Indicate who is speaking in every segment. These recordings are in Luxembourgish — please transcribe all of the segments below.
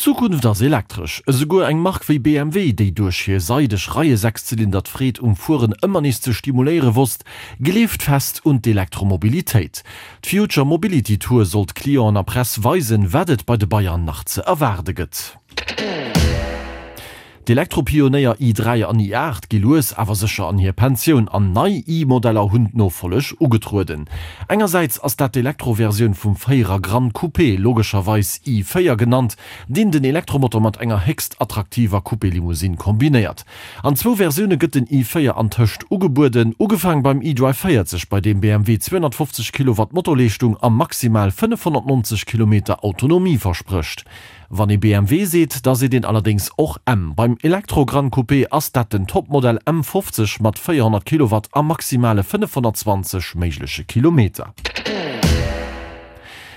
Speaker 1: D'Zukunft ass elektresch. Esouguer eng Mark wéi BMW, déi duerch hir seideg Reie-Sechszylinder d'Freed um Fueren ëmmer nees ze stimuléiere wosst, gleeft fest un d'Elektromobilitéit. D'Future Mobility Tour sollt Clienten a Press weisen, wat et bei de Bayern nach ze erwaarde gëtt. D'Elektropionéier i3 an i8 gi lues awer sécher an hir Pensioun an nei i-Modeller hunn d'Nofolleg ugetrueden. Engersäits ass dat d'Elektroversioun vum Véierer Gran Coupé, logescherweis i4 genannt, deen den Elektromotor mat enger héchst attraktiver Coupé-Limousine kombinéiert. An zwou Versioune gëtt den i4 antëscht ugebueden, ugefaang beim iDrive 40, bei deem BMW 250 Kilowatt Motorleeschtung a maximal 590 Kilometer Autonomie versprécht. Wann ee BMW seet, da seet een allerdéngs och M. Beim Elektro Gran Coupé ass dat den Topmodell M50 mat 400 Kilowatt a maximale 520 méigleche Kilometer.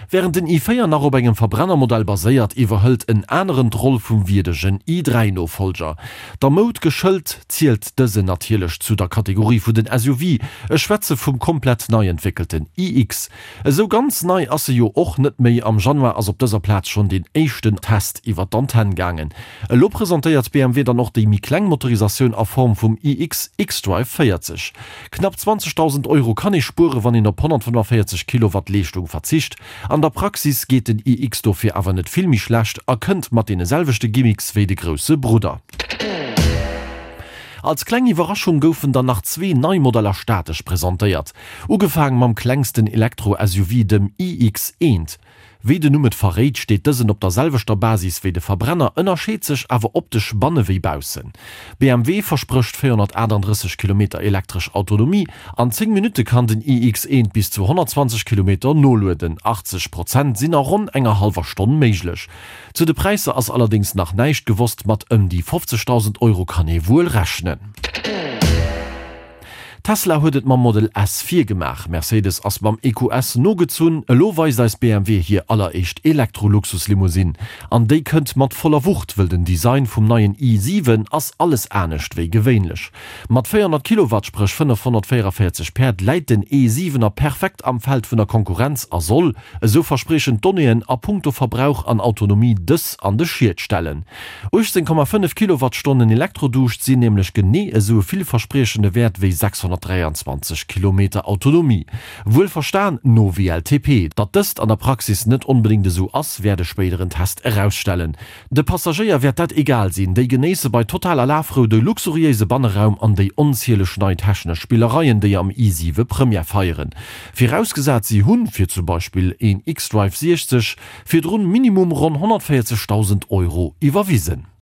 Speaker 1: Wärend den i4 nach op engem Verbrennermodell baséiert, iwwerhëlt en aneren d'Roll vum wierdegen i3-Nofollger. Der Moud geschëlt, zielt dësen natierlech zu der Kategorie vun den SUV. Ech schwätze vum komplett nei entwéckelten iX. Esou ganz nei ass se jo och net méi, am Januar ass op dëser Plaz schonn deen éischten Test iwwer d'Antenn gaangen. Elo presentéiert BMW dann och déi méi kleng Motorisatioun a Form vum iX xDrive 40. Knapp 20.000 Euro kann ee spuere wann een op 145 Kilowatt Leeschtung verzicht. An der Praxis geet den iX dofir awer net vill méi schlecht a kënnt mat deene selwechte Gimmicks wéi de grousse Brudder. Als kleng Iwwerraschung goufen dann nach zwee nei Modeller statesch presentéiert. Ugefaang mam klengsten Elektro-SUV, dem iX1. Wéi den Numm et verréit, steet dësen op der selwechter Basis wéi de Verbrenner, ënnerscheet sech awer optesch banne wéi baussen. BMW versprécht 438 Kilometer elektresch Autonomie, an 10 Minutte kann den iX1 bis zu 120 Kilometer nolueden, 80 Prozent sinn a ronn enger hallwer Stonn méiglech. Zu de Präisser ass allerdéngs nach näischt gewosst, mat ëm déi 50.000 Euro kann ee wuel rechnen. Tesla huet et mam Model S virgemaach, Mercedes ass mam EQS nogezunn, elo weist eis BMW hir alleréischt Elektro-Luxuslimousine. An déi kënnt mat voller Wucht, wëll den Design vum neien i7 ass alles anescht wéi gewéinlech. Mat 400 Kilowatt, spréch 544 Päerd, läit den e-Siwener perfekt am Feld vun der Konkurrenz a soll, Esou verspriechen d'Donnéeën a punkto Verbrauch an Autonomie dës an de Schiet stellen. 18,5 Kilowattstonnen Elektroduuscht sinn nämlech genee esou e villverspriechende Wäert wéi 623 Kilometer Autonomie. Wuel verstan no WLTP. Datt dëst an der Praxis net onbedéngt esou ass, wäert e spéideren Test erausstellen. De Passagéier wäert dat egal sinn, déi genéisse bei totaler Lafrou de luxuriéise Banneraum an déi onzieleg nei technesch Spillereien, déi am i7 Première feieren. Virausgesat si hunn, fir zum Beispill een xDrive 60, virdrun minimum ronn 140.000 Euro iwwerwisen.